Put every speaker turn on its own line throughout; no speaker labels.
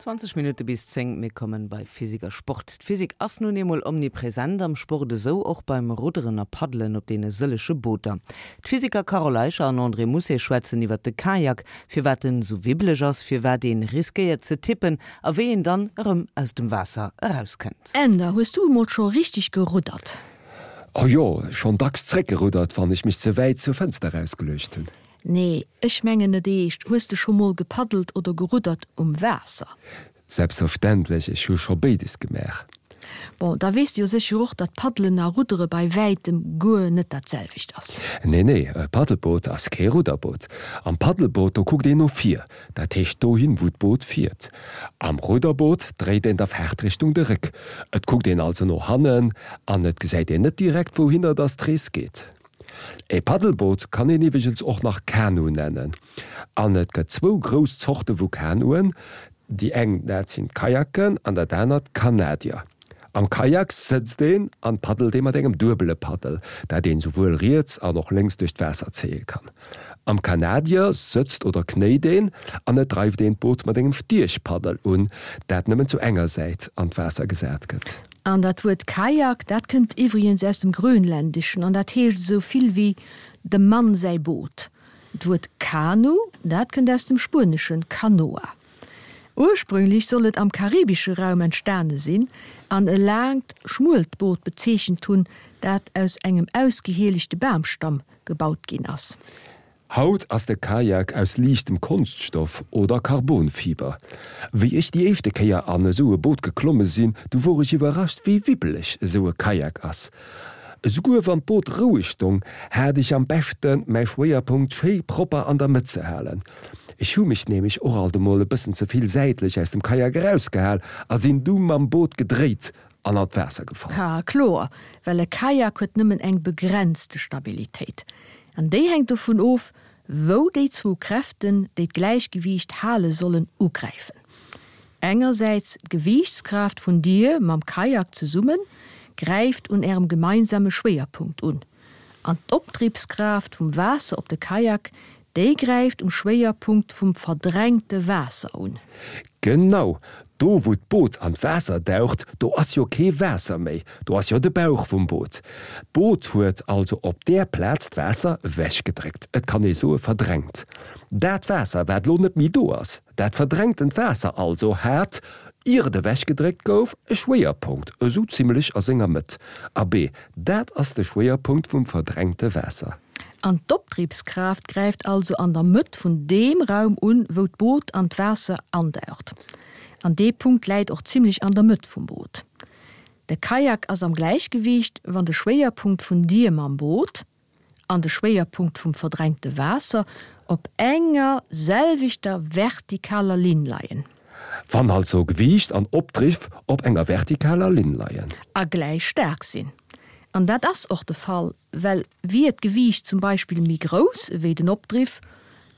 20 Minutte bis 10, mir kommen bei Physik a Sport. D'Physik ass nun eemol omnipresent am Sport, esou och beim Rudderen a Paddelen op deene sëllege Booter. D'Physiker Carole Eicher an André Mousset schwätzen iwwert de Kajak, firwat en esou wibbeleg ass, firwat een riskéiert ze tippen a wéi een dann erëm aus dem Waasser erauskënnt.
Änder, hues du emol scho richteg geruddert?
Oh jo, schonn dacks zréckgeruddert, wann ech mech ze wäit zur Fënster erausgeluecht hunn.
Nee, ech mengen net eescht. Hues de scho mol gepaddelt oder geruddert um Waasser?
Selbstverständlech, ech hu scho béides gemaach.
Bon, da weess de jo sécher och, datt Paddelen a Ruddere bei wäitem guer net dat selwecht ass.
Nee, nee, e Paddelboot ass kee Rudderboot. Am Paddelboot, do kuckt een no vir, dat heescht dohin, wou d'Boot fiert. Am Rudderboot dréit een der Faartrichtung de Réck, et kuckt een also no hannen an et gesäit een net direkt, wouhinner dass d'Rees geet. E Paddelboot kann een iwweregens och nach Kanu nennen. An et gëtt zwou grouss Zorte vu Kanuen, déi eng dat sinn d'Kajaken an dat anert d'Kanadier. Am Kajak sëtzt een an paddelt ee mat engem duebele Paddel, dat een souwuel riets an och lénks duerch d'Waasser zéie kann. Am Kanadier sëtzt oder knéit een an et dreift een d'Boot mat engem Stiechpaddel un, dat nëmmen zu enger Säit an d'Waasser gesat gëtt.
An dat Wuert Kajak, dat kënnt iwwregens aus dem Grönländeschen an dat heescht esou vill wéi dem Mann säi Boot. D'Wuert Kanu, dat kënnt aus dem Spueneschen canoa. Ursprünglech soll et am karibesche Raum entstane sinn an e laangt, schmuelt Boot bezeechent hunn, dat aus engem ausgehielechte Bamstamm gebaut ginn ass.
Haut ass de Kajak aus liichtem Konschtstoff oder Carbonfiber. Wéi ech déi éischte Kéier an esou e Boot geklomme sinn, du wor ech iwwerrascht wéi wibbeleg esou e Kajak ass. Esouguer wann d'Boot roueg stong, hat ech am beschten mäi Schwéierpunkt schéi propper an der Mëtt ze halen. Ech hu mech nämlech och alt emol e bëssen ze vill säitlech aus dem Kajak erausgehal a sinn du mam Boot gedréit an an d'Waasser gefall.
Ha, kloer, well e Kajak huet nëmmen eng begrenzte Stabilitéit. An déi hänkt dovun of, wou déi zwou Kräften, déi d'Gläichgewiicht hale sollen, ugräifen. Engersäits d'Gewiichtskraaft vun dir mam Kajak zesummen gräift un ärem gemeinsame Schwéierpunkt un, an d'Opdribbskraaft vum Waasser op de Kajak, déi gräift um Schwéierpunkt vum verdrängte Waasser un.
Genau, do wou d'Boot an d'Waasser daucht, do ass jo kee Waasser méi, do ass jo de Bauch vum Boot. D'Boot huet also op där Plaz d'Waasser ewechgedréckt, et kann ee soe verdrängt. Dat Waasser wat lo net méi do ass, Dat verdrängtent Waasser also hat, ier et ewechgedréckt gouf, e Schwéierpunkt esou zimlech a senger Mëtt. Abee, dat ass de Schwéierpunkt vum verdrängte Waasser.
An d'Opdribbskraaft gräift also an der Mëtt vun deem Raum un, wou d'Boot an d'Waasser andaucht. An dee Punkt läit och zimlech an der Mëtt vum Boot. De Kajak ass am Gläichgewiicht, wann de Schwéierpunkt vun dir mam Boot, an de Schwéierpunkt vum verdrängte Waasser op enger selwechter vertikaler Linn leien.
Wann also Gewiicht an Opdriff op enger vertikaler Linn leien.
A gläich staark sinn. An dat ass och de Fall, well wier d'Gewiicht zum Beispill méi grouss ewéi den Opdriff,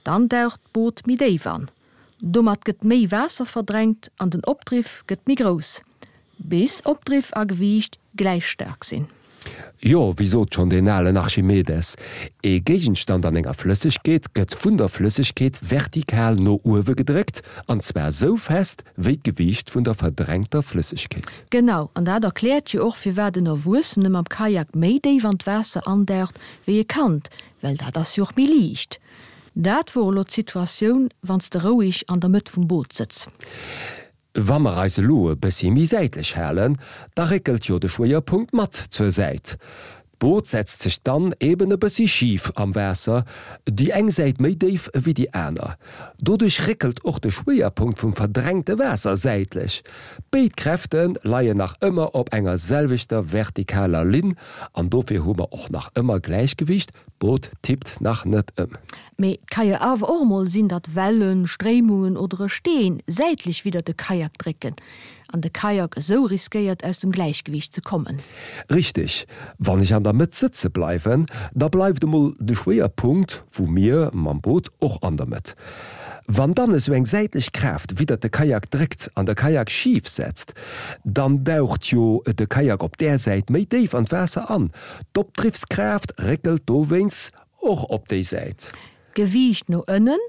dann daucht d'Boot méi déif an. Domat gëtt méi Waasser verdrängt an den Opdriff gëtt méi grouss, bis Opdriff a Gewiicht gläich staark sinn.
Jo, wéi sot schonn deen alen Archimedes, ee Géigenstand an enger Flëssegkeet gëtt vun der Flëssegkeet vertikal no uewe gedréckt, an zwar sou fest wéi d'Gewiicht vun der verdrängter Flëssegkeet.
Genau, an dat erkläert jo och firwat en Erwuessene mam Kajak méi déif an d'Waasser andaucht wéi e Kand, well dat ass jo och méi liicht. Dat wor elo d'Situatioun, wann s de roueg an der Mëtt vum Boot sëtz.
Wa mer eis elo e bëssi méi säitlech halen, da réckelt jo de Schwéierpunkt mat zur Säit. D'Boot setzt sech dann eben e bëssi schif am Waasser, déi eng Säit méi déif ewéi déi aner. Doduerch réckelt och de Schwéierpunkt vum verdrängte Waasser säitlech. Béid Kräfte leien nach ëmmer op enger selwechter vertikaler Linn an dofir hu mer och nach ëmmer Gläichgewiicht, D'Boot tippt nach net ëm.
Mee et ka jo awer och emol sinn, datt Wellen, Stréimungen oder e Steen säitlech widder de Kajak drécken an de Kajak esou riskéiert aus dem Gläichgewiicht ze kommen.
Richteg, wann ech an der Mëtt sëtze bleiwen, da bleift emol de Schwéierpunkt vu mir mam Boot och an der Mëtt. Wann dann esou eng säitlech Kraaft widdert de Kajak dréckt an de Kajak schif setzt, dann daucht jo de Kajak op där Säit méi déif an d'Waasser an. D'Opdriffskraaft réckelt dowéinst och op déi Säit.
D'Gewiicht no ënnen.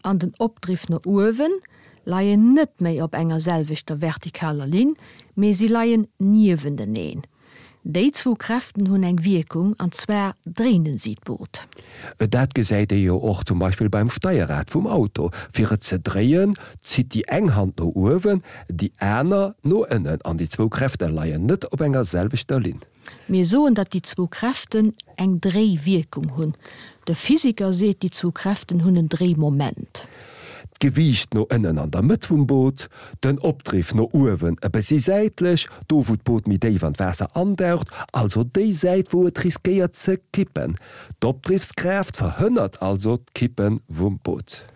an den Opdriff no uewen leien net méi op enger selwechter vertikaler Linn, mee si leien niewenteneen. Déi zwou Kräften hunn eng Wierkung, an zwar dréinen si d'Boot.
Dat gesäit ee jo och zum Beispill beim Steierrad vum Auto. Fir et ze dréien, zitt déi eng Hand no uewen, déi aner no ënnen an déi zwou Kräfte leien net op enger selwechter Linn.
Mir soen, datt déi zwou Kräften eng Dréiwierkung hunn. De Physiker seet, déi zwou Kräften hunn en Dréimoment.
D'Gewiicht no ënnen an der Mëtt vum Boot, den Opdriff no uewen e bëssi säitlech, do wou d'Boot méi déif an d'Waasser andaucht, also déi Säit wou et riskéiert ze kippen. D'Opdriffskraaft verhënnert also d'Kippe vum Boot.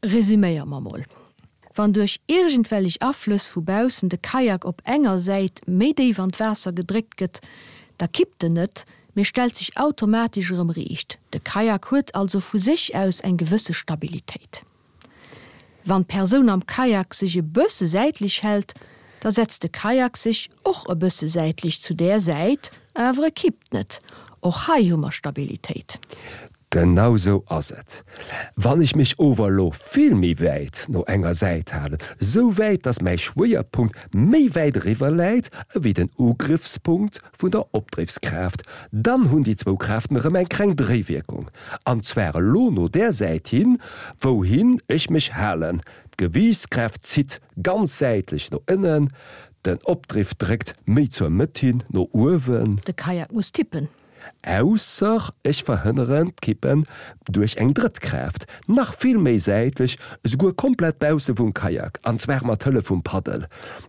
Resüméiere mer mol, Wann duerch iergendwellech Aflëss vu baussen de Kajak op enger Säit méi déif an d'Waasser gedréckt gëtt, da kippt en net, mee stellt sech automatesch erëm riicht. De Kajak huet also vu sech aus eng gewësse Stabilitéit. Wann d'Persoun am Kajak sech e bësse säitlech hält, da setzt de Kajak sech och e bësse säitlech zu där Säit, awer e kippt net. Och hei hu mer Stabilitéit.
Genau sou ass et. Wann ech mech ower elo vill méi wäit no enger Säit halen, sou wäit dass mäi Schwéierpunkt méi wäit eriwwer läit ewéi den Ugriffspunkt vun der Opdriffskraaft, dann hunn déi zwou Kraaften erëm eng kleng Dréiwierkung, an zwar elo no där Säit hin, wouhin ech mech halen. D'Gewiichtskraaft zitt ganz säitlech no ënnen, den Opdriff dréckt méi zur Mëtt hin no uewen.
De Kajak muss tippen.
Ausser ech verhënneren d'Kippen duerch eng drëtt Kraaft, nach vill méi säitlech, esouguer komplett bausse vum Kajak, an zwar mat Hëllef vum Paddel.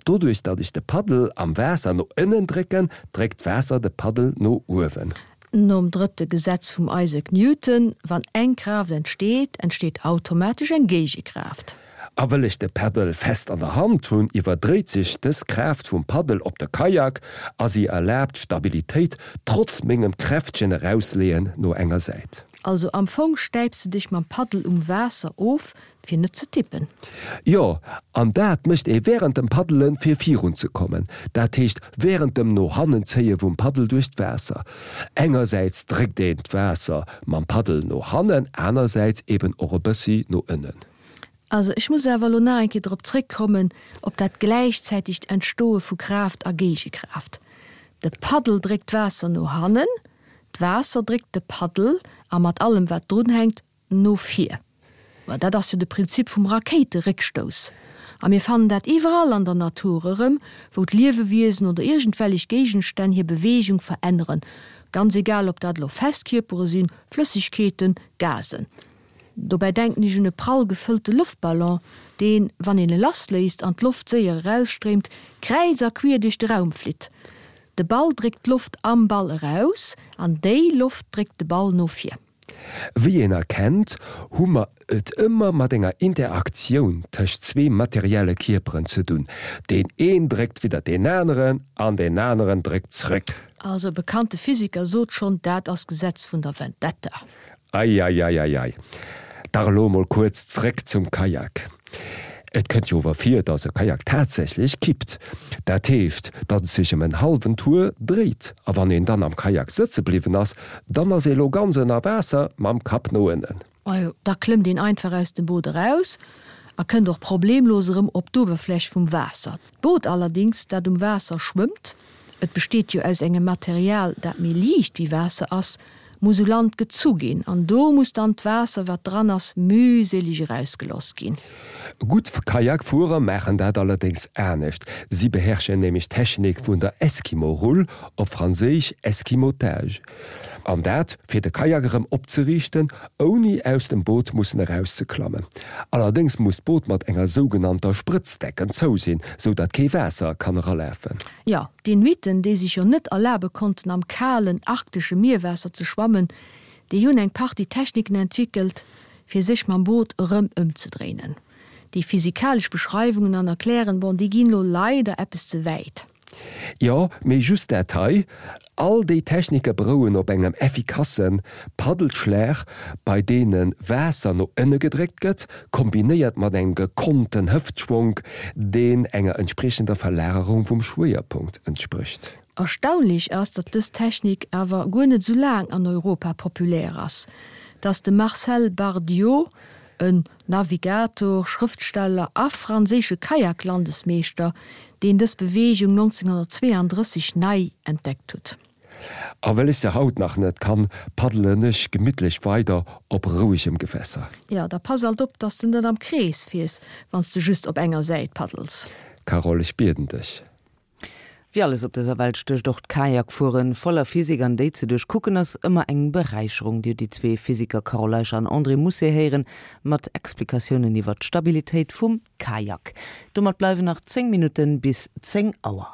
Doduerch datt ech de Paddel am Waasser no ënnen drécken, dréckt d'Waasser de Paddel no uewen.
Nom drëtte Gesetz vum Isaac Newton, Wann eng Kraaft entsteet, entsteet automatesch eng Géigekraaft.
A wëll ech de Paddel fest an der Hand hunn, iwwerdréit sech dës Kraaft vum Paddel op de Kajak a si erlaabt Stabilitéit trotz mengem kräftegen Erausleeën no enger Säit.
Also am Fong stäips de dech mam Paddel um Waasser of fir net ze tippen.
Jo, an dat mécht ee wärend dem Paddelen fir virun ze kommen, dat heescht wärend dem no hannen zéie vum Paddel duerch d'Waasser. Engersäits dréckt een d'Waasser mam Paddel no hannen, anersäits eben och e bëssi no ënnen.
Also ech muss awer elo nach eng Kéier drop zréckkommen, op dat gläichzäitegt Entstoe vu Kraaft a Géigekraaft. De Paddel dréckt d'Waasser no hannen, d'Waasser dréckt de Paddel, a mat allem wat drunhänkt, no vir. Ma dat ass jo de Prinzip vum Rakéiteréckstouss. A mir fannen dat iwwerall an der Natur erëm, wou d'Liewewiesen oder iergendwellech Géigenstänn hir Beweegung veränneren, ganz egal ob dat elo fest Kierpere sinn, Flëssegkeeten, Gasen. Dobäi denken ech un e prall gefëllte Loftballon, deen, wann een e lassléisst an d'Loft séier erausstréimt, kräiz a quier duerch de Raum flitt. De Ball dréckt d'Loft am Ball eraus an déi Loft dréckt de Ball no vir.
Wéi een erkennt, hu mer et ëmmer mat enger Interaktioun tëscht zwee materielle Kierperen ze dunn. Deen een dréckt widder deen aneren an deen aneren dréckt zréck.
Also e bekannte Physiker sot schonn, dat ass d'Gesetz vun der Vendetta.
Eieieiei. Dach elo emol kuerz zréck zum Kajak. Et kënnt jo ower vir, dass e Kajak tatsächlech kippt. Dat heescht, datt et sech ëm en hallwen Tour dréit. A wann een dann am Kajak sëtze bliwwen ass, dann ass ee lo ganz ënner Waasser mam Kapp no ënnen.
Majo, da klëmmt een einfach aus dem Boot eraus a kënnt och problemlos erëm op d'Uewerfläch vum Waasser. D'Boot allerdings, dat um Waasser schwëmmt, et besteet jo aus engem Material, dat méi liicht wéi Waasser ass, muss u Land gezu ginn an do muss dann d'Waasser, wat dran ass, mühselig erausgeloss ginn.
Gutt Kajakfuerer maachen dat allerdéngs anescht. Si beherrschen nämlech d'Technik vun der Eskimo-Rull, op Franséisch Esquimotage. An dat, fir de Kajak erëm opzeriichten, ouni aus dem Boot mussen erauszeklammen. Allerdéngs muss d'Boot mat enger sougenannter Sprëtzdecken zou sinn, sou datt kee Waasser kann eralafen.
Jo, d'Inuiten, déi sech jo net erlabe konnten am kalen arktesche Mierwaasser ze schwammen, déi hunn eng Partie Techniken entwéckelt, fir sech mam Boot erëm ëmzedréinen. Déi physikalesch Beschreiwungen an Erklären, bon, déi ginn elo leider eppes ze wäit.
Jo, mee just dat hei, All déi Technike berouen op engem effikasse Paddelschlag, bei deene Waasser no ënne gedréckt gëtt, kombinéiert mat engem gekonnten Hëftschwonk, deen enger entspriechender Verlagerung vum Schwéierpunkt entsprécht.
Erstaunlech ass, datt dës Technik awer guer net esou laang an Europa populär ass, datt de Marcel Bardiot. En Navigator, Schrëftsteller a franséische Kayak-Landesmeeschter, deen dës Beweegung 1932 nei entdeckt huet.
A well ech se haut nach net kann, paddelen ech gemittlech weider op rouegem Gewässer.
Jo, da pass alt op, dass de net am Krees fiers, wann s de just op enger Säit paddels.
Carole, ech bieden dech.
Wéi alles op dëser Welt stécht och d'Kajakfueren voller Physik an déi ze duerchkucken ass ëmmer eng Beräicherung. Dir hutt déi zwee Physiker Carole Eicher an André Mousset héieren mat Explikatiounen iwwer d'Stabilitéit vum Kajak. Domat bleiwen nach 10 Minutten bis 10 Auer.